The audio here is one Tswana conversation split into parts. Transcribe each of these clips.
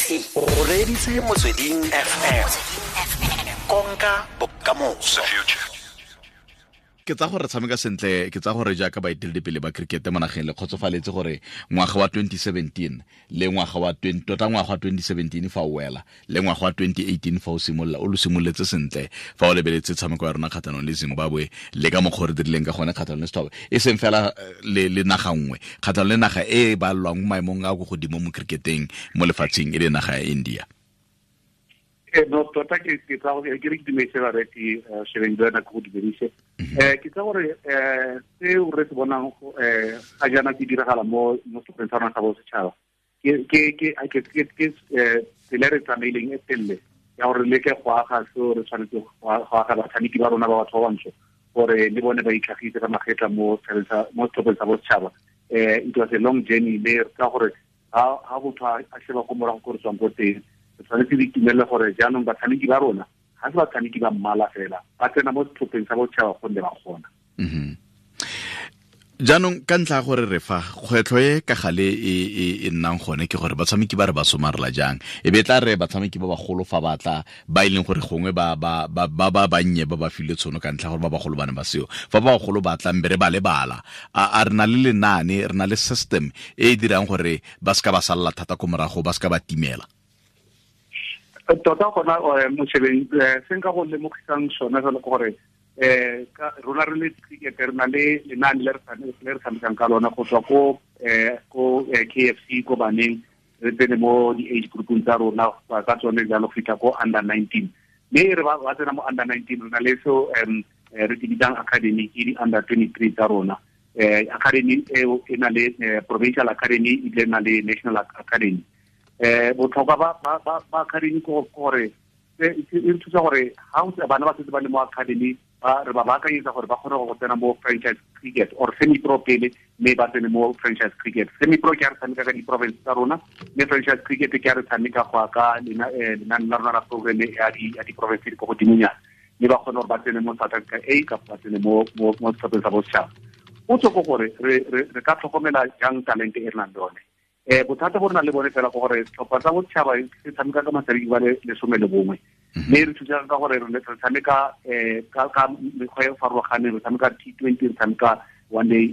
O reditse Motsweding FM. Konka bokamoso. Ke tsa gore tshameka sentle, ke tsa gore jaaka baeteledipele ba cricket mo nageng le kgotsofaletse gore ngwaga wa 2017 le ngwaga wa 20, tota ngwaga wa 2017 fa o wela le ngwaga wa 2018 fa o simolola, o lo simoletse sentle fa o lebeletse tshameko ya rona kgatlhanong le Zimbabwe le ka mokgwa o re dirileng ka gone kgatlhanong le Sethoba, e seng fela le naga nngwe, kgatlhanong le naga e e balwang mo maemong a ko godimo mo cricketeng mo lefatsheng, e le naga ya India. No, tota ke tsa gore ke re ke dumedise bareki, Shebeng le wena ke go dumedise. Ke tsa gore seo re se bonang ga jaana ke diragala mo setlhopheng sa rona sa bosetšhaba. Ke tsela e re tsamaileng e telele ya gore re leke go aga seo re tshwanetse go aga batshameki ba rona ba batho ba bantsho gore le bone ba itlhagise ka magetla mo setlhopheng sa bosetšhaba. It was a long journey, mme re tsa gore ha motho a sheba ko morago ko re tswang ko teng, re tshwanetse re itumelele gore jaanong batshameki ba rona ga se batshameki ba mmala fela, ba tsena mo setlhopheng sa bosetšhaba gonne ba kgona. Jaanong ka ntlha ya gore re fa kgwetlho e ka gale e nnang gone ke gore batshameki ba re ba somarela jang, e be tla re batshameki ba bagolo fa ba tla ba e leng gore gongwe ba bannye ba ba filwe tshono ka ntlha gore ba bagolo ba ne ba seo, fa ba bagolo ba tlang be re ba lebala, a re na le lenaane, re na le system e e dirang gore ba seka ba salla thata ko morago, ba seka ba timela. Tota gona, Moshebeng, se nka go lemogisang sone fela ke gore ka rona re le cricket re na le lenaane le re tshamekang ka lona go tswa ko KFC ko baneng, re tsene mo di-age groupong tsa rona ka tsone jalo go fitlha ko under 19. Mme re ba tsena mo under 19, re na le seo re se bitsang academy, ke di-under 23 tsa rona. Academy eo e na le provincial academy, ebile e na le national academy. Botlhokwa ba academy ke gore e re thusa gore ha o bana ba setse ba le mo academy, re ba baakanyetsa gore ba kgone go tsena mo franchise cricket or semi-pro pele, mme ba tsene mo franchise cricket. Semi-pro ke a re tshameka ka di-province tsa rona, mme franchise cricket ke a re tshameka go ya ka lenaane la rona la programme ya di-province di ko godimonyana, mme ba kgone gore ba tsene mo South Africa A kapa ba tsene mo setlhopheng sa bosetšhaba. Potso ke gore re ka tlhokomela jang talente e re nang le yone. Bothata bo re nang le bone fela ke gore setlhopha sa bosetšhaba se tshameka ka matshameki ba le 11, mme re thusa ka gore re tshameka ka mekgwa e farologaneng, re tshameka T20, re tshameka one day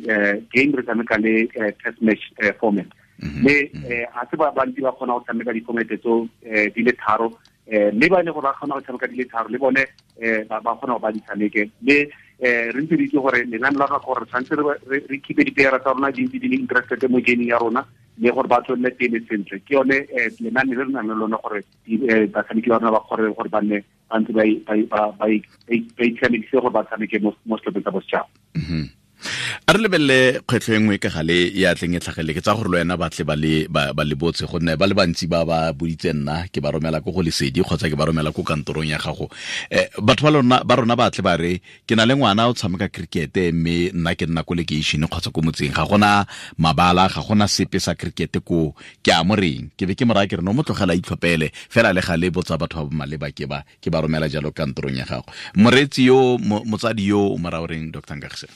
game, re tshameka le test match format. Mme ga se ba bantsi ba kgona go tshameka di-format tseo di le tharo, mme ba e leng gore ba kgona go tshameka di le tharo le bone ba kgona go ba di tshameke. Mme re ntse re itse gore lenaane la rona ke gore re tshwanetse re keep-e di-player tsa rona di ntse di le interested mo gaming ya rona, mme gore ba tswelele pele sentle. Ke yone lenaane le re nang le lone gore batshameki ba rona ba kgone gore ba nne ba ntse ba itshamekise gore ba tshameke mo setlhopheng sa bosetšhaba. A re lebelele kgwetlho e nngwe ka gale ya tleng e tlhagele, ke tsa gore le wena ba tle ba le botse, gonne ba le bantsi ba ba boditse nna, ke ba romela ko go Lesedi kgotsa ke ba romela ko kantorong ya gago. Batho ba rona ba tle ba re ke na le ngwana o tshameka cricket, mme nna ke nna ko lekeišene kgotsa ko motseng, ga gona mabala, ga gona sepe sa cricket ko, ke a mo reng, ke be ke mo raya ke re no mo tlogela itlhophele fela, le gale botsa batho ba ba maleba, ke ba romela jalo kantorong ya gago. Moreetsi yo, motsadi yo o mo raya o reng, Doctor Nkagisang?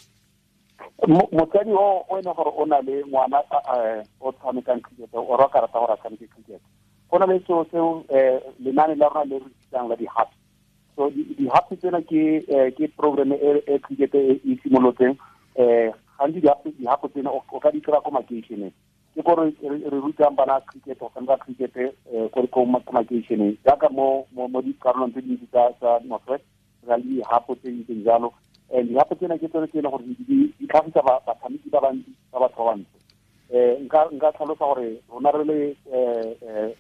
Motsadi o e leng gore o na le ngwana o tshamekang cricket, o rata rata gore a tshameke cricket, go na le seo seo lenaane la rona le re bitsang la di-hubs. So di-hubs tsena ke program e cricket e simolotseng. Gantsi di-hub tsena o ka di kry-a ko makeišeneng, ke gore re rutang bana cricket, go tshameka cricket ko makeišeneng, jaaka mo dikarolong tse dintsi tsa North West re na le di-hub tse di ntseng jalo. And di-hub tsena ke tsone tse e leng gore di tlhagisa batshameki ba bantsi ba batho ba bantsho. Nka tlhalosa gore rona re le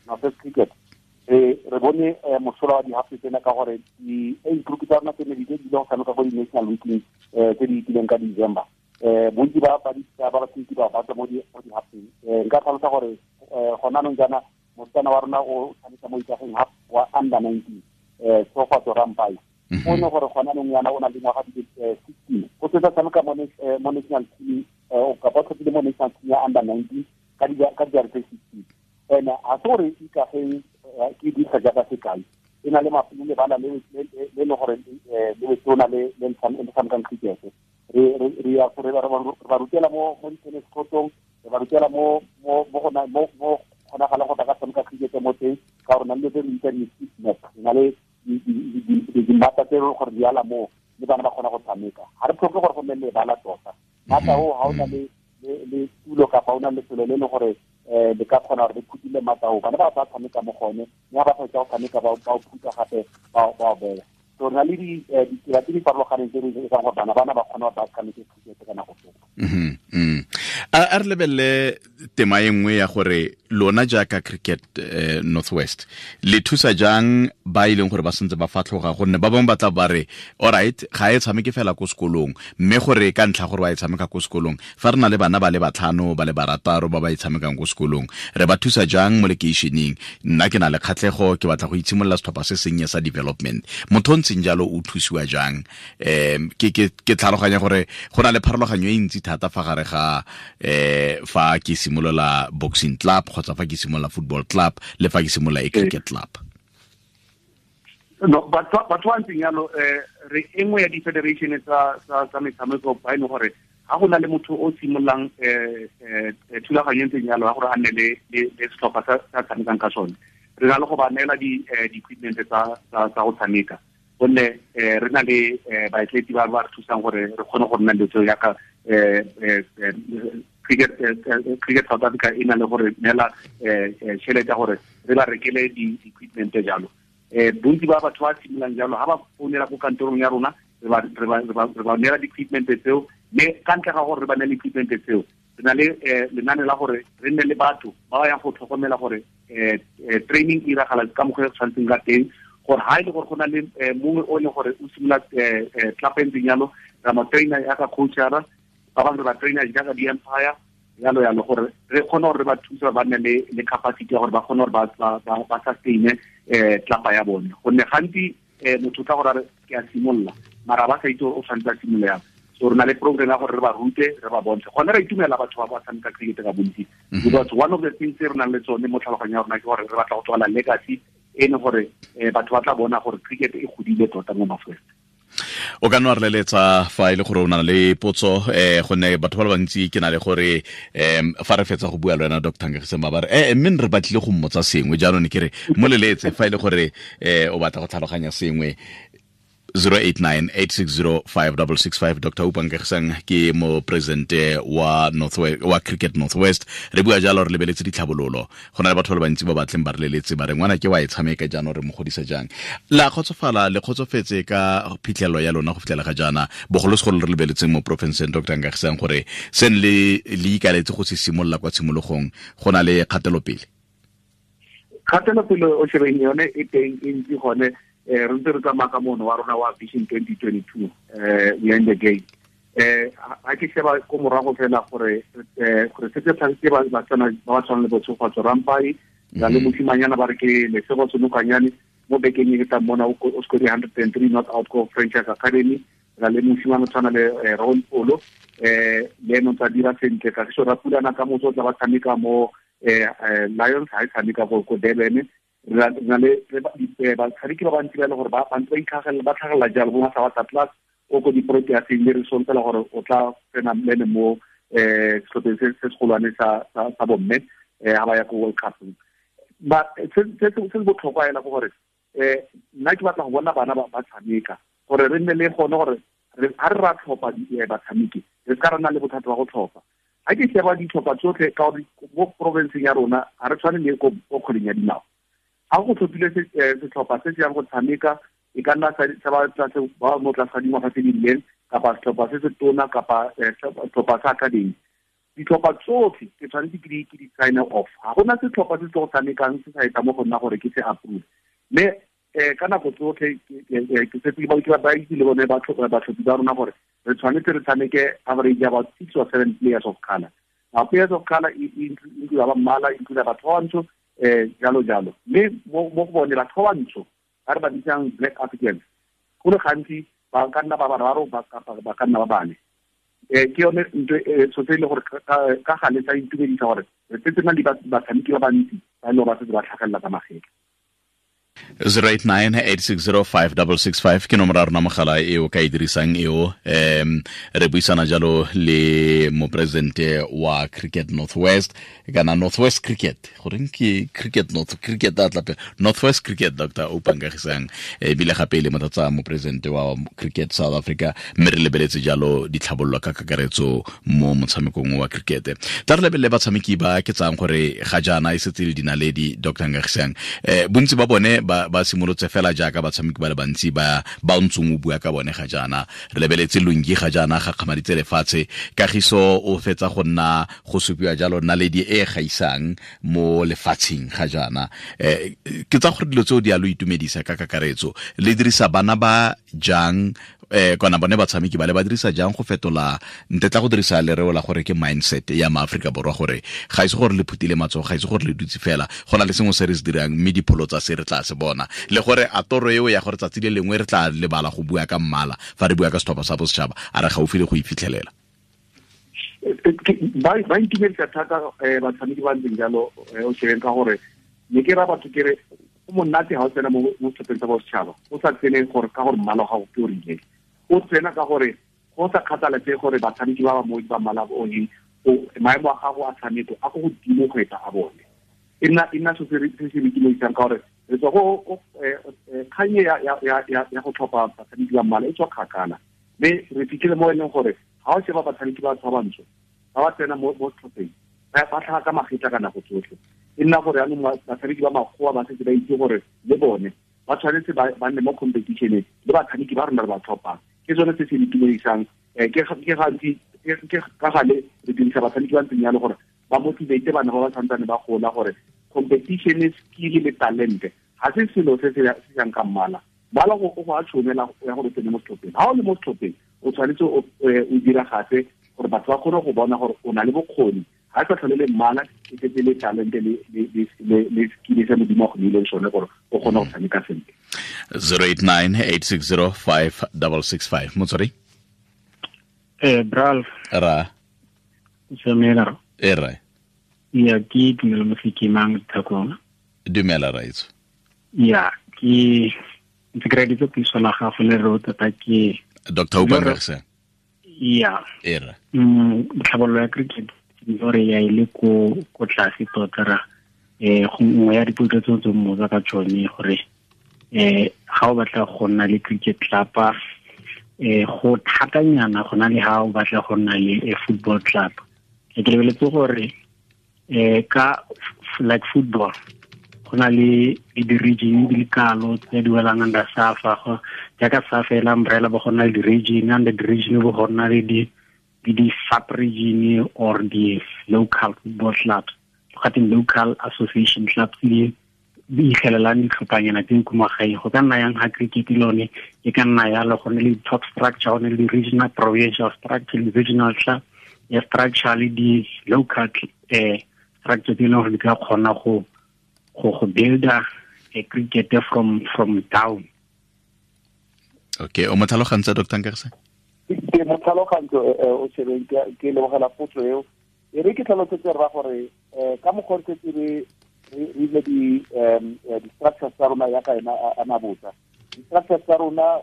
North West Cricket re bone mosola wa di-hub tsena ka gore di-age group tsa rona tse ne di ile go tshameka ko di-national weekly tse di itileng ka December. Bontsi ba batshameki ba ba tswa mo di-hubseng. Nka tlhalosa gore gona anong jaana mosetsana wa rona o tshameka mo Ikageng Hub wa under 19, Tshegofatso Rampai. O ne gore gona anong yana o na le ngwaga di le 16, o setse a tshameka mo national team, o kapa o tlhophile mo national team ya under 19 ka dijara tse 16. And ga se gore Ikageng ke dirisa jaaka sekai, e na le lebala le le gore le letona le le tshamekang cricket. Re ya gore re ba rutela mo di-tennis courtong, re ba rutela mo kgonagalang go ka tshameka cricket mo teng. na le tse di di-fitness, re na le dimmata tse gore di ala moo le bana ba kgona go tshameka. Ga re tlhoke gore go nne lebala tota. Mata o ga o na le tulo kapa o na le lefelo le leng gore le ka kgona gore le phutile mata o, bana ba tla tshameka mo gone, mme ga ba fetsa go tshameka ba o phutha gape ba o beya. So re na le ditsela tse di farologaneng tse di etsang gore bana ba kgone gore ba tshameke cricket ka nako tsotlhe. A re lebelele tema e nngwe ya gore lona jaaka Cricket Northwest le thusa jang ba e leng gore ba sentse ba fatlhoga, gonne ba bangwe ba tla ba re alright ga e tshameke fela ko sekolong, mme gore ka ntlha gore ba e tshameka ko sekolong, fa re na le bana ba le batlhano ba le barataro ba ba e tshamekang ko sekolong, re ba thusa jang mo lekeišeneng? Nna ke na le kgatlhego, ke batla go itshimolola setlhopha se sennye sa development. Motho o ntseng jalo o thusiwa jang? Ke tlhaloganya gore go na le pharologanyo e ntsi thata fa gare ga fa ke simolola boxing club kgotsa fa ke simolola football club le fa ke simolola e cricket club. No, batho ba ntseng yalo, re e nngwe ya di-federation tsa metshameko ba e leng gore ga go na le motho o simololang thulaganyo e ntseng yalo ya gore a nne le setlhopha sa tshamekang ka sone, re na le go ba neela di-equipment tsa go tshameka, gonne re na le baetleti ba ba re thusang gore re kgone go nna le tseo yaka Cricket South Africa e na le gore neela tšhelete ya gore re ba rekele di-equipment jalo. Bontsi ba batho ba simololang jalo ga ba founela ko kantorong ya rona, re ba neela di-equipment tseo, mme ka ntle ga gore re ba neele equipment tseo, re na le lenane la gore re nne le batho ba ba yang go tlhokomela gore training e iragala ka mokgwa e tshwanetseng ka teng, gore ha e le gore go na le mongwe o e leng gore o simolola club e ntseng jalo, ra mo trainer yaka coachara, ba bangwe re ba trainer jaaka di-umpire jalo jalo, gore re kgone gore re ba thuse ba nne le capacity ya gore ba kgone gore ba sustain club ya bone. Gonne gantsi motho o tla gore a re ke a simolola, mara ba sa itse gore o tshwanetse a simolola yang. So re na le program ya gore re ba rute, re ba bontshe. Gone re itumela batho ba ba tshameka cricket ka bontsi, because one of the things tse re nang le tsone mo tlhaloganyong ya rona ke gore re batla go tswala legacy e leng gore batho ba tla bona gore cricket e godile tota mo North West. O ka nna re leletsa fa e le gore o na le potso, gonne batho ba le bantsi ke na le gore fa re fetsa go bua le wena Dr. Nkagisang ba re mme re batlile go mmotsa sengwe, jaanong ke re mo leletse fa e le gore o batla go tlhaloganya sengwe. 089-860-5665. Dr. Oupa Nkagisang ke mo presidente wa wa Cricket Northwest. Re bua jalo re lebeletse ditlhabololo. Go na le batho ba le bantsi ba batleng ba re leletse ba re ngwana ke wa e tshameka jaanong re mo godisa jang. La kgotsofala, le kgotsofetse ka phitlhelelo ya lona go fitlhela ga jaana, bogolosegolo re lebeletseng mo porofenseng Dr. Nkagisang gore seng le ikaletse go se simolola kwa tshimologong, go na le kgatelopele. Kgatelopele o shebeng yone e teng e ntsi gone. Re ntse re tsamaya ka mono wa rona wa Vision 2022, we are in the game. Ha ke sheba ko morago fela gore gore se se tlhagise ba ba tshwana le Botshegofatso Rampai, ra le mosimanyana ba re ke Lesego Senokanyane mo bekeng e tlang mona o score 103 not out ko Franchise Academy, ra le mosimane tshwana le Ron Polo, le ene o tsa dira sentle. Kagiso Rapulana ka motso o tla ba tshameka mo Lions, ha e tshameka ko Durban. Re na le batshameki ba bantsi ba e leng gore ba ntse ba itlhagelela, ba tlhagelela jalo bo Masabata Plus o ko di-Proteaseng, mme re solofela gore o tla tsena le ene mo setlhopheng se segolwane sa bomme ha ba ya ko World Cup. Ba se se botlhokwa ela ke gore nna ke batla go bona bana ba tshameka, gore re nne le gone gore ha re ra tlhopha batshameki, re ska ra nna le bothata ba go tlhopha. Ha ke sheba ditlhopha tsotlhe ka gore mo provinceng ya rona ha re tshwane le ko kgweleng ya dinao. Ha go tlhophile setlhopha se se yang go tshameka, e ka nna sa ba tlase ba mo tlase ga dingwaga tse di rileng, kapa setlhopha se se tona, kapa setlhopha sa academy. Ditlhopha tsotlhe ke tshwanetse ke di sign off. Ha gona setlhopha se se go tshamekang se sa etsa mo go nna gore ke se approve. Mme ka nako tsotlhe ke setse ke ba itse le bone batlhophi ba rona gore re tshwanetse re tshameke average about 6 or 7 players of color. Now players of color include ba mmala, include batho ba bantsho, jalo jalo. Mme mo go bone batho ba bantsho ba re ba bitsang Black Africans, go le gantsi ba ka nna ba bararo, ba ka nna ba bane. Ke yone ntho so se e le gore ka gale tsa intumedisa gore re setse na le batshameki ba bantsi ba e leng gore ba setse ba tlhagelela ka magetla. 089 860 5665 ke nomoro ya rona mogala e o ka e dirisang eo. Re buisana jalo le moporesidente wa Cricket Northwest, kana Northwest Cricket, goreng ke Cricket North, Cricket a tlape Northwest Cricket, Dr Oupa Nkagisang, ebile gape le motlatsa moporesidente wa Cricket South Africa, mme re lebeletse jalo ditlhabololo ka kakaretso mo motshamekong wa cricket. Tla re lebelele batshameki ba ke tsang gore ga jaana e setse le dinaledi, Dr Nkagisang. Bontsi ba bone ba simolotse fela jaaka batshameki ba le bantsi ba ba ntsong o bua ka bone ga jaana. Re lebeletse Lungi, ga jaana ga kgamaditse lefatshe. Kagiso o fetsa go nna go supiwa jalo naledi e gaisang mo lefatsheng ga jaana. Ke tsa gore dilo tseo di a lo itumedisa ka kakaretso. Le dirisa bana ba jang, kana bone batshameki ba le ba dirisa jang go fetola, ntetla go dirisa lereo la gore ke mindset ya maAforika Borwa, gore ga ise gore le phutile matsogo, ga ise gore le dutse fela, go na le sengwe se re se dirang, mme dipholo tsa se re tla se bona, le gore a toro eo ya gore tsatsi le lengwe re tla lebala go bua ka mmala fa re bua ka setlhopha sa bosetšhaba, a re gaufi le go e fitlhelela? Ba itumedisa thata batshameki ba ntseng jalo, o shebeng, ka gore ne ke ra batho ke re go monate ga o tsena mo setlhopheng sa bosetšhaba, o sa tsene gore ka gore mmala wa gago ke o rileng, o tsena ka gore go sa kgathaletse gore batshameki ba ba mo ba mmala o eng, maemo a gago a tshameko a ko godimo go eta a bone. E nna so se se itumedisang, ka gore re tswa go kganye ya go tlhopha batshameki ba mmala e tswa kgakala, mme re fitlhile mo e leng gore ga o sheba batshameki ba batho ba bantsho ba ba tsena mo setlhopheng, ba tlhaga ka magetla ka nako tsotlhe. E nna gore yaanong batshameki ba makgowa ba setse ba itse gore le bone ba tshwanetse ba nne mo competitioneng le batshameki ba rona re ba tlhophang. Ke sone se se itumedisang. Ke gantsi ke ka gale re dirisa batshameki ba ntseng yalo gore ba motivate bana ba ba santsane ba gola, gore competition, skill le talente ga se selo se se yang ka mmala. Mmala go a tshwanela ya gore o tsene mo setlhopheng. Ga o le mo setlhopheng, o tshwanetse o diragatse gore batho ba kgone go bona gore o na le bokgoni. Ga e sa tlhole le mmala, e setse le talente le skill se Modimo a go neileng sone gore o kgone go tshameka sentle. 089 860 5665, motswari. Bralf. Ra. Samela. E ra. Ya, ke Tumelo Mosekimang, Thakong. Dumela, raitso. Ya, ke ntse ke reditse puiso la gago le re tota ke Dr Oupa Nkagisang. Ya. E ra. Tlhabololo ya cricket gore ya ile ko tlase tota ra go nngwe ya dipotso tse tse mmotsa ka tsone gore ga o batla go nna le cricket club, go thatanyana go na le ha o batla go nna le a football club. Ke lebeletse gore ka like football go na le di-region di le kalo tse di welang under SAFA, go jaaka SAFA e la umbrella, bo go nna le di-region, under di-region bo go nna le di sub region or di local football clubs, gateng local association clubs di di ikgelelang ditlhophanyana tse ko magaeng. Go ka nna yang ga cricket lone e ka nna yalo, go ne le top structure, go ne le regional, provincial structure, le regional club ya structure le di-local structure tse e leng gore di ka kgona go builda a cricket from down. Okay, o mo tlhalogantse, Dr Nkagisang? Ke mo tlhalogantse, o shebeng, ke lebogela potso eo. E re ke tlhalosetse rra gore ka mokgwa re setse re ile di-structures tsa rona yaka ena a nabotsa di-structures tsa rona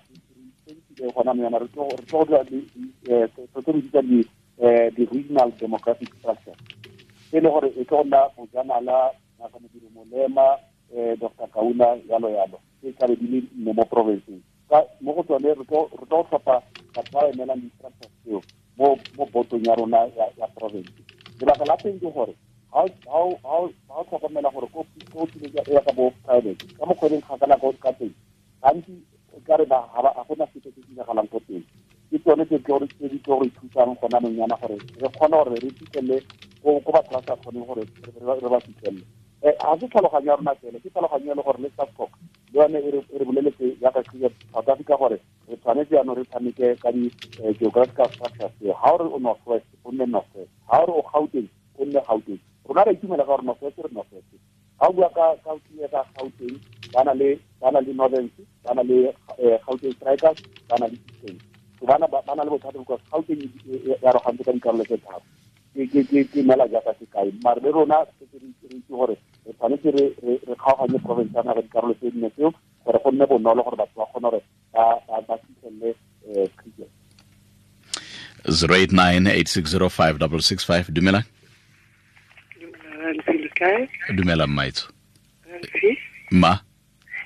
re gona mo yana re tlo go dira tlo re bitsa di-regional demographic structure, e le gore e tlo go nna Bojanala, Ngaka Modiri Molema, Dr Kaunda, yalo yalo, e tlabe di le nne mo provinceng. Ka mo go tsone re tlo go tlhopha batho ba emelang di-structures tseo mo botong ya rona ya province. Lebaka la teng ke gore ga o tlhokomela gore ko tlileng ya ka bo private ka mokgweding kgakala ka teng, gantsi ka re ga gona sepe se se diragalang ko teng. Ke tsone tse di tlo re thusang gona nonyana gore re kgone gore re fitlhelele ko batho ba sa kgoneng gore re ba fitlhelele. Ga se tlhaloganyo ya rona fela, ke tlhaloganyo e le gore le SASCOC le yone e re boleletse jaaka Cricket South Africa gore re tshwanetse jaanong re tshameke ka di-geographical structures tseo. Ga o re o North West, o nne North West; ga o re o Gauteng, o nne Gauteng. Rona re itumela ka gore North West re North West. Ga o bua ka Gauteng, ba na le Northern, ba na le Gauteng Strikers, ba na le Eastern. So ba na le bothata because Gauteng e arogantse ka dikarolo tse tharo. Ke neela jaaka sekai, mare le rona setse re itse gore re tshwanetse re kgaoganye province ya naga dikarolo tse dine tseo gore go nne bonolo gore batho ba kgone gore ba fitlhelele cricket. 089 860 5665. Dumela. Dumela, mmaitso. Ma.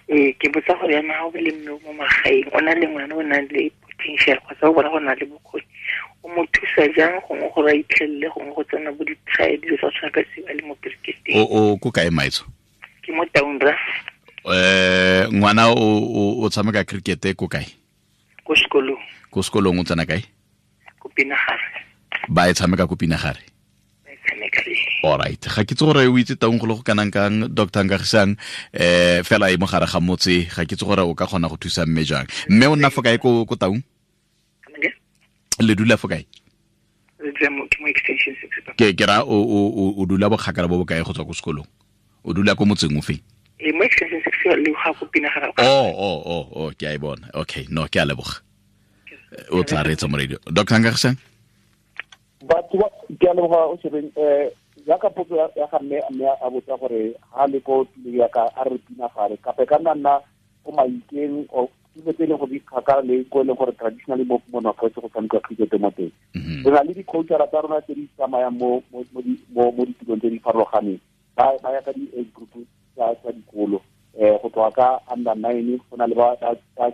Ee, ke botsa gore yana ga o le mme mo magaeng, o na le ngwana o nang le potential kgotsa o bona go na le bokgoni, o mo thusa jang gongwe gore a itlhelele gongwe go tsena bo di-trial, dilo tsa go tshwana ka seo, a le mo cricketeng? O ko kae, maitso? Ke mo Taung, ra. Ngwana o tshameka cricket ko kae? Ko sekolong. Ko sekolong, o tsena kae? Ko Pinagare. Ba e tshameka ko Pinagare? Ba e tshameka, ee. Alright, ga ke itse gore o itse Taung go le go kanang kang, Dr Nkagisang, fela e mo gare ga motse. Ga ke itse gore o ka kgona go thusa mme jang. Mme o nna fo kae ko Taung? Le dula fo kae? Re dula ke mo Extension 6, papa. Ke ra o dula bokgakala bo bokae go tswa ko sekolong? O dula ko motseng o feng? Ee, mo Extension 6 le ga ko Pinagare. Oh, ke a e bona. Okay, no, ke a leboga. O tla reetsa mo radio, Dr Nkagisang. Batho ba, ke a leboga o shebeng. Jaaka potso ya ga mme a botsa gore ha le ko tulong ya ka, a re Pinagare kape ka nna ko Maikeng o tulo tse e leng gore di kgakala le ko e leng gore traditionally mo North West go tshamekiwa cricket mo teng, re na le di-coachara tsa rona tse di tsamayang mo ditulong tse di farologaneng. Ba ya ka di-age group tsa dikolo, go tloga ka under 9, go na le ba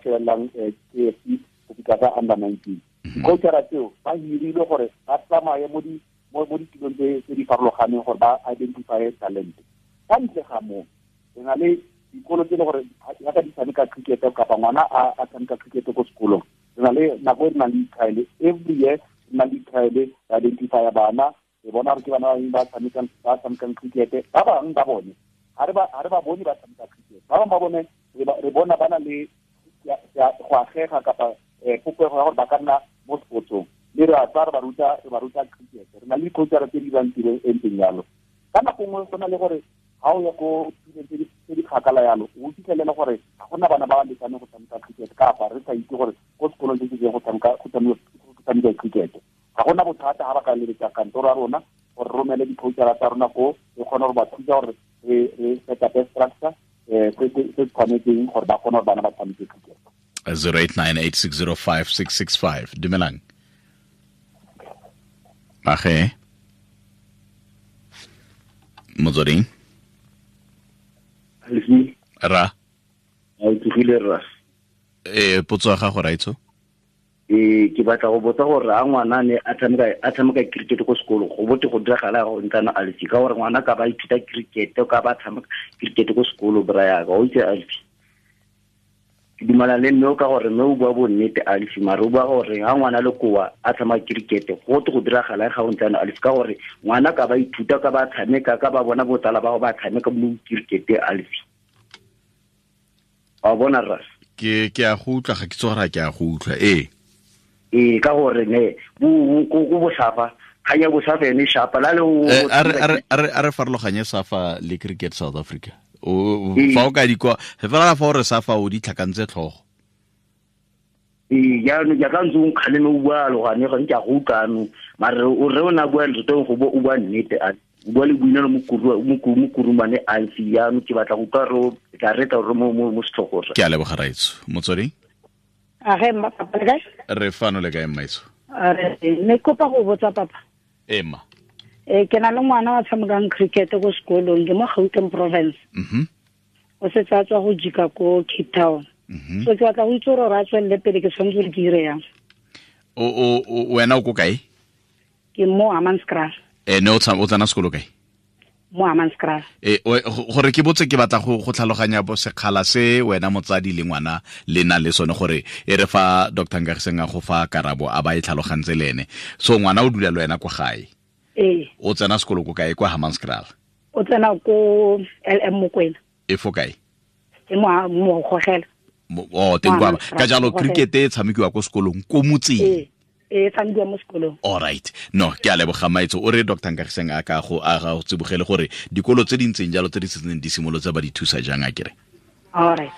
shebelelang KFC go fitlha ka under 19. Di-coachara tseo ba hirilwe gore ba tsamaye mo ditulong tse di farologaneng gore ba identify talent. Ka ntle ga moo, re na le dikolo tse e le gore yaka di tshameka cricket kapa ngwana a tshameka cricket ko sekolong, re na le nako e re nang le di-trial every year. Re na le di-trial, re identifya bana, re bona gore ke bana ba bangwe ba tshamekang cricket. Ba bangwe ba bone ga re ba bone ba tshameka cricket, ba bangwe ba bone re bona ba na le go agega kapa popego ya gore ba ka nna mo sportsong, mme re a tsaya re ba ruta cricket. Re na le di-coachara tse di dirang tiro e ntseng jalo. Ka nako nngwe go na le gore ga o ya ko tulong tse di kgakala yalo, o fitlhelele gore ga gona bana ba ba lekaneng go tshameka cricket, kapa re sa itse gore ko sekolong se se go tshameka cricket. Ga gona bothata ga ba ka leletsa kantoro ya rona gore re romele di-coachara tsa rona ko, re kgone gore ba thusa gore re set up structure se tshwanetseng gore ba kgone gore bana ba tshameke cricket. 0898605665. Dumelang, age Motsweding. Ra. A o tsogile, rra? E potso ya gago, raitso. Ee, ke batla go botsa gore a ngwana ne a tshameka cricket ko sekolong, go bote go diragala go ntsana alfi, ka gore ngwana ka ba ithuta cricket, ka ba tshameka cricket ko sekolo, bra yaka o itse alfi. Ke dumela le mme o ka gore mme o bua bonnete alfi, mare o bua gore ga ngwana le koa a tshameka cricket, go te go diragala ga o ntsana alfi, ka gore ngwana ka ba ithuta, ka ba tshameka, ka ba bona botsala ba go ba tshameka mo cricket alfi, wa bona, rra? Ke a go utlwa, ga ke tse gore ke a go utlwa, ee. Ee, ka gore ne ko bosafa, kganya bosafa ene shapa la le. A re farologanye SAFA le Cricket South Africa. Fa o ka di kwa fela, fa o re SAFA, o di tlhakantse tlhogo. Ee, jaanong jaaka ntse o nkgaleme, o bua alogane gone, ke a go utlwano, mare o re o ne a bua nreteng go bo o bua nnete, a o bua le boinelo mo kurumane alfi. Jaanong ke batla go utlwa re o tla retla re mo setlhogo, rra. Ke a leboga, raitso. Motsweding. Age mma, papa, le kae? Re fano, le kae, mmaitso? Re ne kopa go botsa, papa. Ema. Ee, ke na le ngwana wa tshamekang cricket ko sekolong, ke mo Gauteng province. O setse a tswa go jika ko Cape Town. So ke batla go itse gore a tswelele pele, ke tshwanetse gore ke ire yang? O wena o ko kae? Ke mo Hammanskraal. E ne o tsena sekolo kae? Mo Hammanskraal. E gore ke botse, ke batla go tlhaloganya bo sekgala se wena motsadi le ngwana le na le sone, gore e re fa Dr Nkagiseng a go fa karabo, a ba e tlhalogantse le ene. So ngwana o dula le wena kwa gae? Ee. O tsena sekolo ko kae kwa Hammanskraal? O tsena ko LM Mokwena. E fo kae? E mo Gogela. O teng kwa ka jalo cricket e tshamekiwa ko sekolong ko motseng? Ee, e tshamekiwa mo sekolong. Alright, no, ke a leboga, maitso. O re Dr Nkagiseng a ka go a ga go tsibogele gore dikolo tse di ntseng jalo tse di setseng di simolotse ba di thusa jang, a kere? Alright.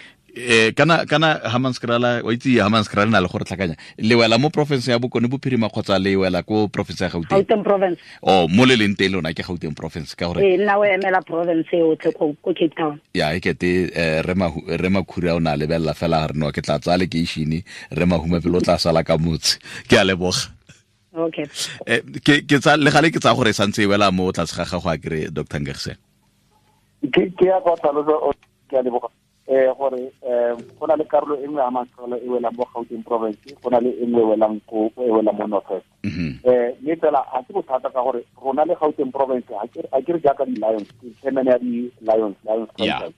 Kana Hammanskraal, o itse Hammanskraal na le gore tlhakanya. Le wela mo province ya Bokone Bophirima kgotsa le wela ko province ya Gauteng? Gauteng province. Oh, mo le leng teng lona ke Gauteng province ka gore. Nna o emela province yotlhe ko Cape Town. Ya e kete re Makhura o na lebella fela re no ke tla tsaya lekeishene, re Mahumapelo o tla sala ka motse. Ke a leboga. Okay. Ke tsa le gale ke tsa gore santse e wela mo tlase ga gago a kere Dr. Nkagisang. Ke ya go tlhalosa, ke a leboga. Gore go na le karolo e nngwe ya Hammanskraal e welang mo Gauteng province, go na le e nngwe e welang ko e welang mo North West. Mme fela ga se bothata ka gore rona le Gauteng province ga ke re jaaka di-Lions, ke chairman ya di-Lions, Lions franchise.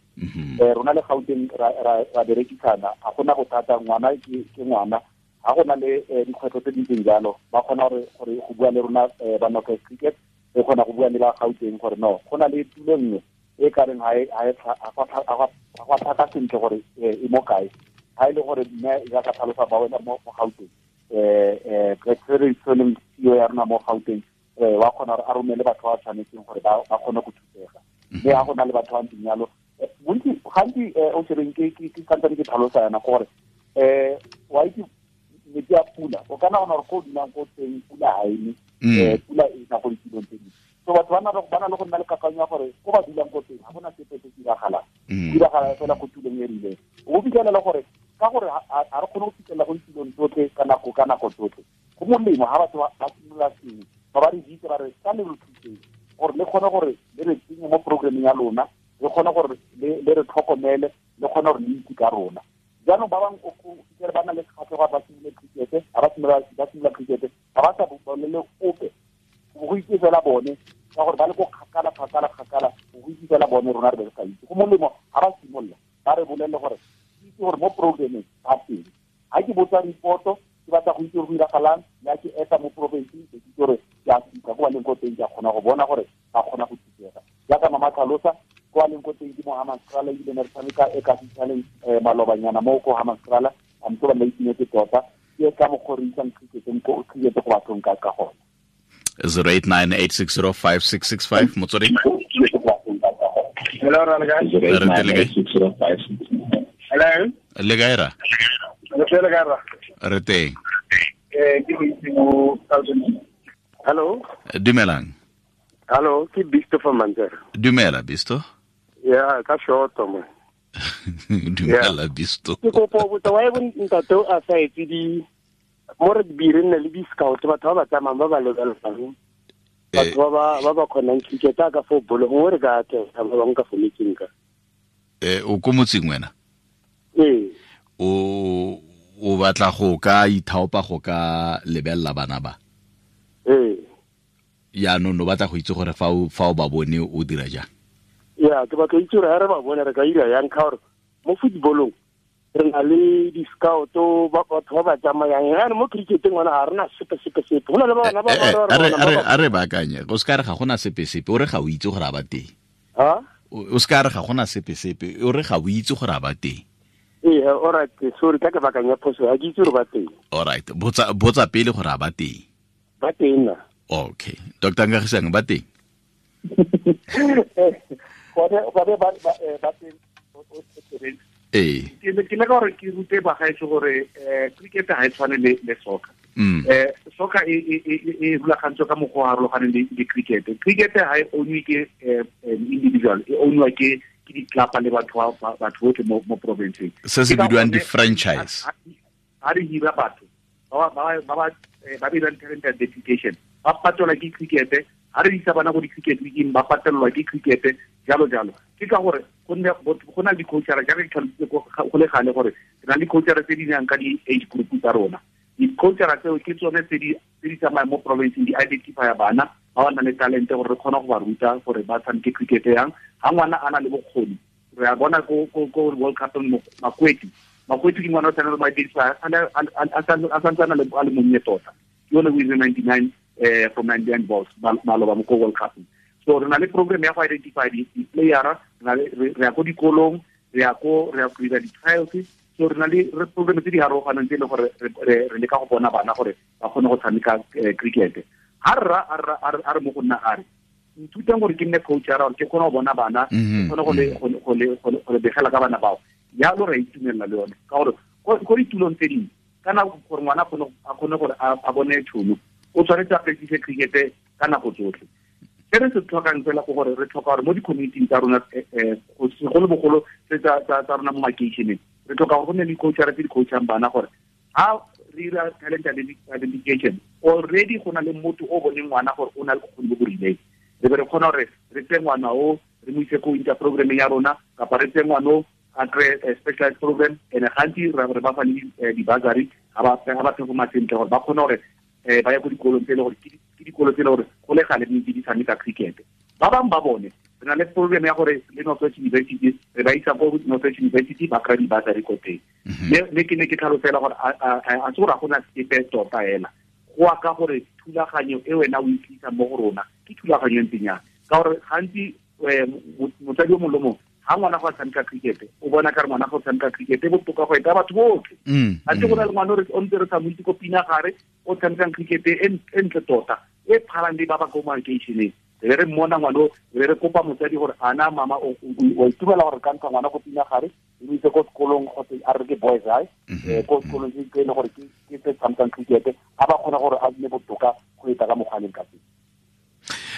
Rona le Gauteng ra berekisana, ga gona bothata, ngwana ke ngwana, ga gona le dikgwetlho tse di ntseng jalo, ba kgona gore go bua le rona ba North West Cricket, re kgona go bua le ba Gauteng gore no, go na le tulo nngwe e ka reng ga gwa thata sentle gore e mo kae. Ha e le gore mme ya ka tlhalosa ba wena mo Gauteng, re tshwaneng CEO ya rona mo Gauteng, wa kgona gore a romele batho ba tshwanetseng gore ba kgone go thusega. Mme ha go na le batho ba ntseng jalo, bontsi gantsi o shebeng ke santsane ke tlhalosa yana gore wa itse metsi a pula, o ka nagana gore ko o dulang ko teng pula ha e ne, pula e na go ditulong tse dingwe. So batho ba na le go nna le kakanyo ya gore ko ba dulang ko teng ga gona sepe se diragalang, diragala fela ko tulong e rileng. O fitlhelela gore ka gore ga re kgone go fitlhelela go ditulong tsotlhe ka nako tsotlhe, go molemo ga batho ba simolola sengwe, ba re bitse ba re ka le re thuseng gore le kgone gore le re tsenye mo programmeng ya lona, le kgone gore le re tlhokomele, le kgone gore le itse ka rona. Jaanong ba bangwe o fitlhele ba na le kgatlhego ba simolole cricket, ga ba simolola cricket ga ba sa bolele ope, go itse fela bone ka gore ba le ko kgakala, go itse fela bone, rona re be re sa itse. Go molemo ga ba simolola ba re bolelele gore itse gore mo programmeng ba teng. Ga ke botsa reporto, ke batla go itse gore go diragalang, le ha ke eta mo provinceng, ke itse gore ke a fitlha ko ba leng ko teng, ke a kgona go bona gore ba kgona go thusega. Jaaka mama tlhalosa, ko ba leng ko teng ke mo Hammanskraal, ebile ne re tshameka e ka fitlhaleng malobanyana mo ko Hammanskraal, a ntse ba nna itumetse tota, ke ka mokgwa re isang cricket go bathong ka gona. 0898605665 Motsweding. Hello, Hello. Le kae ra? Re teng. Hello. Dumelang. Hello, ke Bisto from Manzera. Dumela Bisto. Yeah, ka short mo. Dumela Bisto. Ke kopo botsa wa e ntate o a sa etse di mo rugby re nne le di-scout, batho ba ba tsamayang ba ba lebelelang, batho ba ba kgonang cricket ka fo bolo, gongwe re ka atlega ba bangwe ka fo metseng ka. O ko motseng wena? Ee. O batla go ka ithaopa go ka lebelela bana ba? Ee. Jaanong o batla go itse gore fa o ba bone o dira jang? Ya, ke batla itse gore ha re ba bone re ka ira yang, ka gore mo footballong re na le di-scout, batho ba ba tsamayang. Yaanong mo cricketeng ngwana ga re na sepe. Go na le bana ba a re baakanye, o se ka re ga gona sepe, o re ga o itse gore a ba teng. O se ka re ga gona sepe, o re ga o itse gore a ba teng. Ee, alright, sorry, ka ke baakanya phoso, ga ke itse gore ba teng. Alright, botsa pele gore a ba teng. Ba teng na. Okay, Dr. Nkagisang ba teng. Gone ba teng. Ee. Ke le ka gore ke rute bagaetsho gore cricket ga e tshwane le soccer. Soccer e rulagantswe ka mokgwa o harologaneng le cricket. Cricket ga e ownwe ke individual, e ownwa ke ditlapa le batho botlhe mo provinceng. Se se bidiwang di-franchise. Ha re hira batho ba ba dirang talent identification, ba patelwa ke cricket. Ha re isa bana go di-cricket weekeng, ba patelelwa ke cricket, jalo jalo. Ke ka gore go na le di-coachara, jaaka ke tlhalositse go le gale gore re na le di-coachara tse di nang ka di-age group tsa rona. Di-coachara tseo ke tsone tse di tsamayang mo provinceng, di identifya bana ba ba nang le talente gore re kgone go ba ruta gore ba tshameke cricket yang. Ha ngwana a na le bokgoni, re a bona ko World Cup Makweti ke ngwana o tshwanetse go identify a santse a le monnye tota. Ke yone o ile 99 from 99 balls maloba mo ko World Cup. So re na le program ya go identify di-playera, re ya ko dikolong, re ya go dira di-trials. So re na le program tse di harologaneng tse e leng gore re leka go bona bana gore ba kgone go tshameka cricket. Ha rra a re mo go nna a re nthutang gore ke nne coach ya gore ke kgone go bona bana, ke kgone go le begela ka bana bao. Jalo re itumelela le yone ka gore ko ditulong tse dingwe ka nako gore ngwana a kgone gore a bone tšhono, o tshwanetse a practice cricket ka nako tsotlhe. Se re se tlhokang fela ke gore re tlhoka gore mo di-community tsa rona, segolobogolo tse tsa rona mo makeišeneng, re tlhoka gore go nne le di-coachara tse di coachang bana gore ha re dira talent identification, already go na le motho o boneng ngwana gore o na le bokgoni bo bo rileng, re be re kgona gore re tseye ngwana o re mo ise ko inter programmeng ya rona, kapa re tseye ngwana o a kry-e specialized program. And gantsi re ba fa le di-bursary ga ba performa sentle, gore ba kgone gore ba ye ko dikolong tse e le gore ke dikolo tse e le gore go le gale di di tshameka cricket. Ba bangwe ba bone re na le program ya gore le North West University, re ba isa ko North West University, ba kry-a di-bursary ko teng. Mme ke ne ke tlhalosela gore a se gore ga gona sepe tota ela, go a ka gore thulaganyo e wena o e tlisang mo go rona ke thulaganyo e ntseng jang, ka gore gantsi motsadi o mongwe le mongwe ha ngwana go tshameka cricket o bona ka re ngwana go tshameka cricket e botoka go eta batho botlhe. A tse go na le ngwana o ntse re sa mo itse ko Pinagare o tshamekang cricket e ntle tota e phalang le ba ba ko makeišeneng, re re mmona ngwana o, re re kopa motsadi gore ana mama o itumela gore ka ntsha ngwana ko Pinagare e mo ise ko sekolong kgotsa a re ke boys high, ko sekolong se e le gore ke se tshamekang cricket, a ba kgona gore a nne botoka go eta ka mokgwa a leng ka teng.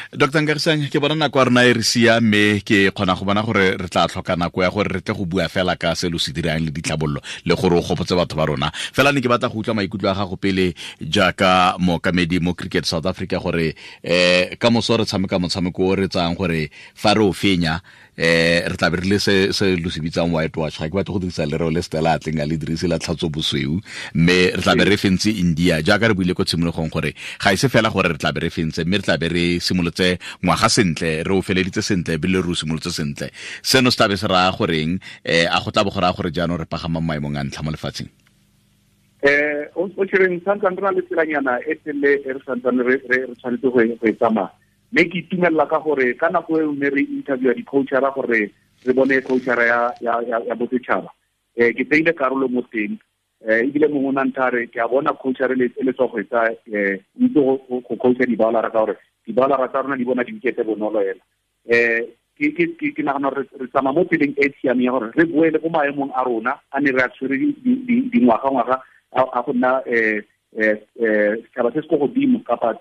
Dr. Nkagisang, ke bona nako ya rona e re sia, mme ke kgona go bona gore re tla tlhoka nako ya gore re tle go bua fela ka se lo se dirang le ditlhabololo le gore o gopotse batho ba rona. Fela ne ke batla go utlwa maikutlo a gago pele jaaka mookamedi mo Cricket South Africa gore ka moso re tshameka motshameko o re tsayang gore fa re o fenya, re tla be re le se lo se bitsang white wash. Ga ke batle go dirisa lereo le Stella a tleng a le dirise la tlhatso bosweu, mme re tla be re fentse India jaaka re buile ko tshimologong gore ga e se fela gore re tla be re fentse, mme re tla be re simolotse ngwaga sentle, re o feleditse sentle ebile re o simolotse sentle. Seno se tla be se raya goreng? A go tla bo go raya gore jaanong re pagama maemong a ntlha mo lefatsheng? O tshwereng santsane re na le tselanyana e telele e re santsane re tshwanetse go e tsamaya. Mme ke itumelela ka gore ka nako e ne re interviewa di-coachara gore re bone coachara ya bosetšhaba, ke tseile karolo mo teng, ebile mongwe o na nthare ke a bona coachara e le tswa go etsa, o itse go coacha di-bowlara ka gore di-bowlara tsa rona di bona di-wicket bonolo ela. Ke nagana gore re tsamaya mo tseleng e siameng ya gore re boele ko maemong a rona a ne re a tshwere dingwaga-ngwaga a go nna setšhaba se se ko godimo kapa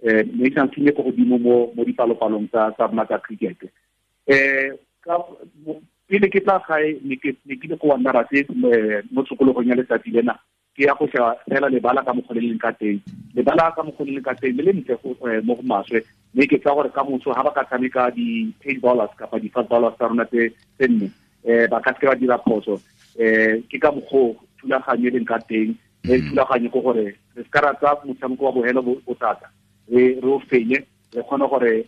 national team e ko godimo mo dipalopalong tsa rona tsa cricket. Pele ke tla gae ne ke le ko Wanderers mo tshokologong ya letsatsi lena, ke ya go sheba fela lebala ka mokgwa le leng ka teng, lebala ka mokgwa le leng ka teng le le ntle mo go maswe. Mme ke tsa gore ka moso ha ba ka tshameka di-pace bowlers kapa di-fast bowlers tsa rona tse nne, ba ka seke ba dira phoso. Ke ka mokgwa thulaganyo e leng ka teng, mme thulaganyo ke gore re se ka ra tsaya motshameko wa bohelo bothata, re o fenye, re kgone gore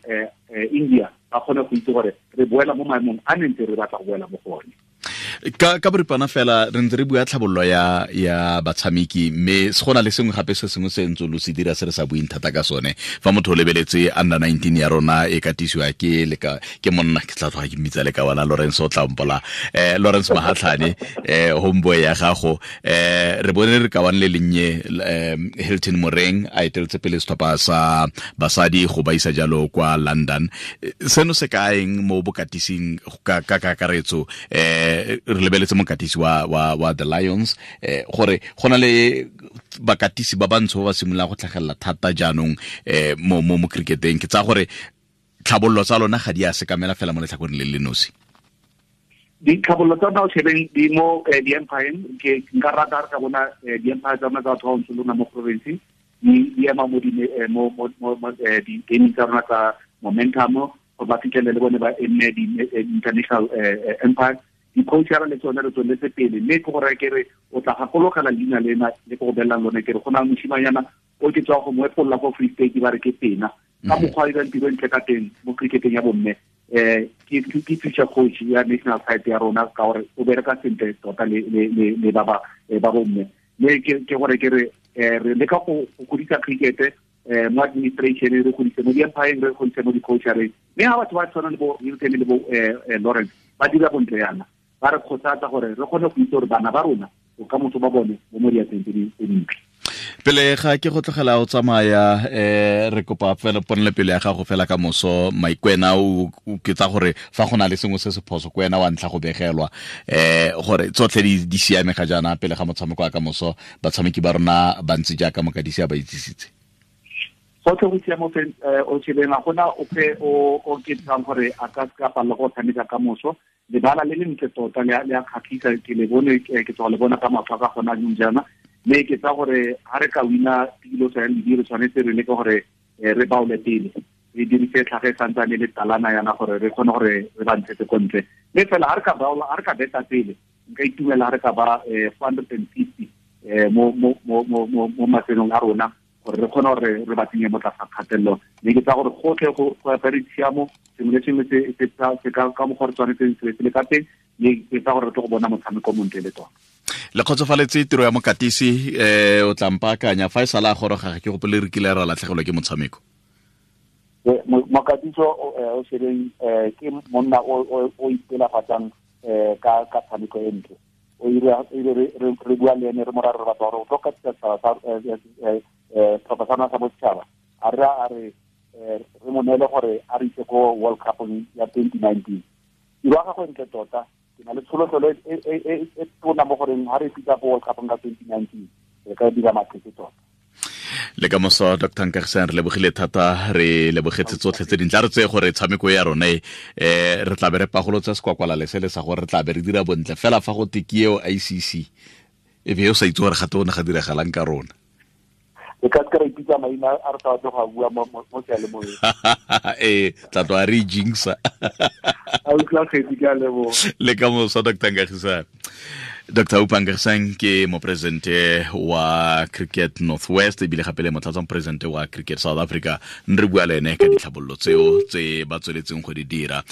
India ba kgone go itse gore re boela mo maemong a ne ntse re batla go boela mo go one. Ka boripana fela re ntse re bua tlhabololo ya batshameki, mme se gona le sengwe gape se sengwe se ntse lo se dira se re sa buing thata ka sone. Fa motho o lebeletse under 19 ya rona e katisiwa ke leka ke monna ke tla tloga ke mmitsa le ka wana Lawrence o tlampola, Lawrence Mahatlhane, homeboy ya gago, re bone re ka wane le lennye Hilton Moreng a eteletse pele setlhopha sa basadi go ba isa jalo kwa London. Seno se kaeng mo bokatising ka kakaretso? Re lebeletse mokatisi wa the Lions, gore go na le bakatisi ba bantsho ba ba simololang go tlhagelela thata jaanong mo cricketeng. Ke tsaya gore tlhabololo tsa lona ga di a sekamela fela mo letlhakoreng le le nosi. Ditlhabololo tsa rona o shebeng di mo di-empire, ke nka rata re ka bona di-empire tsa rona tsa batho ba bantsho lona mo province di ema mo di-gaming tsa rona tsa momentum, gore ba fitlhelele le bone ba enne di-international empire. Di-coachara le tsone re tsweletse pele, mme ke gore ke re o tla gakologela leina lena le ke go belela lone, ke re go na le moshimanyana o ke tswa go mo epolola ko Free State ba re ke Pena, ka mokgwa a dirang tiro ntle ka teng mo cricketeng ya bomme. Ke future coach ya national side ya rona ka gore o bereka sentle tota le ba bomme. Mme ke gore ke re re leka go godisa cricket mo administration, re godise mo di-empire, re godise mo di-coachareng. Mme ha batho ba tshwana le bo Hilton le bo Lawrence ba dira bontle yana, ba re kgothatsa gore re kgone go itse gore bana ba rona bokamoso ba bone bo mo diatleng tse dintle. Pele ga ke go tlogela o tsamaya, re kopa fela ponele pele ya gago fela ka moso Maikwena, o ke tsa gore fa go na le sengwe se se phoso ko wena wa ntlha go begelwa, gore tsotlhe di siame ga jaana pele ga motshameko wa ka moso, batshameki ba rona ba ntse jaaka mokatisi a ba itsisitse. Gotlhe go siame o shebeng, ga gona ope o ke tsang gore a ka se ka palela go tshameka ka moso. Lebala le le ntle tota le a kgatlhisa, ke le bone, ke tswa le bona ka matlho a ka gona jaanong jaana. Mme ke tsa gore ha re ka wina tilo tsa ledi, re tshwanetse re leke gore re baole pele, re dirise tlhage e santsane le talana yana gore re kgone gore re ba ntshetse ko ntle. Mme fela ha re ka baola, ha re ka beta pele, nka itumela ha re ka ba 450 mo mafelong a rona, gore re kgone gore re ba tsenye mo tlasa kgatelelo. Mme ke tsa gore gotlhe go apere tshiamo, sengwe le sengwe se ka mokgwa re tshwanetseng se le ka teng, mme ke tsa gore re tlo go bona motshameko o montle le tota. Le kgotsofaletse tiro ya mokatisi, o tla mpaakanya fa e sala a goroga, ga ke gopole re kile ra latlhegelwa ke motshameko. Mokatisi o shebeng, ke monna o ipelafatsang ka tshameko e ntle. O ile re bua le ene, re mo raya re batla gore o tlo katisa setšhaba sa setlhopha sa rona sa bosetšhaba. A re a re re mo neele gore a re ise ko World Cup ya 2019. Tiro ya gagwe ntle tota, ke na le tsholofelo e tona mo goreng ha re fitla ko World Cup ka 2019 re ka dira maphetse tota. Le ka moso Dr. Nkagisang, re lebogile thata, re lebogetse tsotlhe tse dintle. A re tseye gore tshameko ya rona e, re tla be re pagolotsa sekwakwala le sele sa gore re tla be re dira bontle fela fa go te ke eo ICC, e be o sa itse gore gape o ne ga diragalang ka rona. Re ka se ra ipitsa maina a re sa batle go a bua mo seyalemoyeng. Ee, tla tloga re jinxa. A utlwa kgetsi, ke a leboga. Le ka moso Dr. Nkagisang. Dr. Oupa Nkagisang ke moporesidente wa Cricket Northwest, ebile gape le motlatsa moporesidente wa Cricket South Africa. Re bua le ene ka ditlhabololo tseo tse ba tsweletseng go di dira.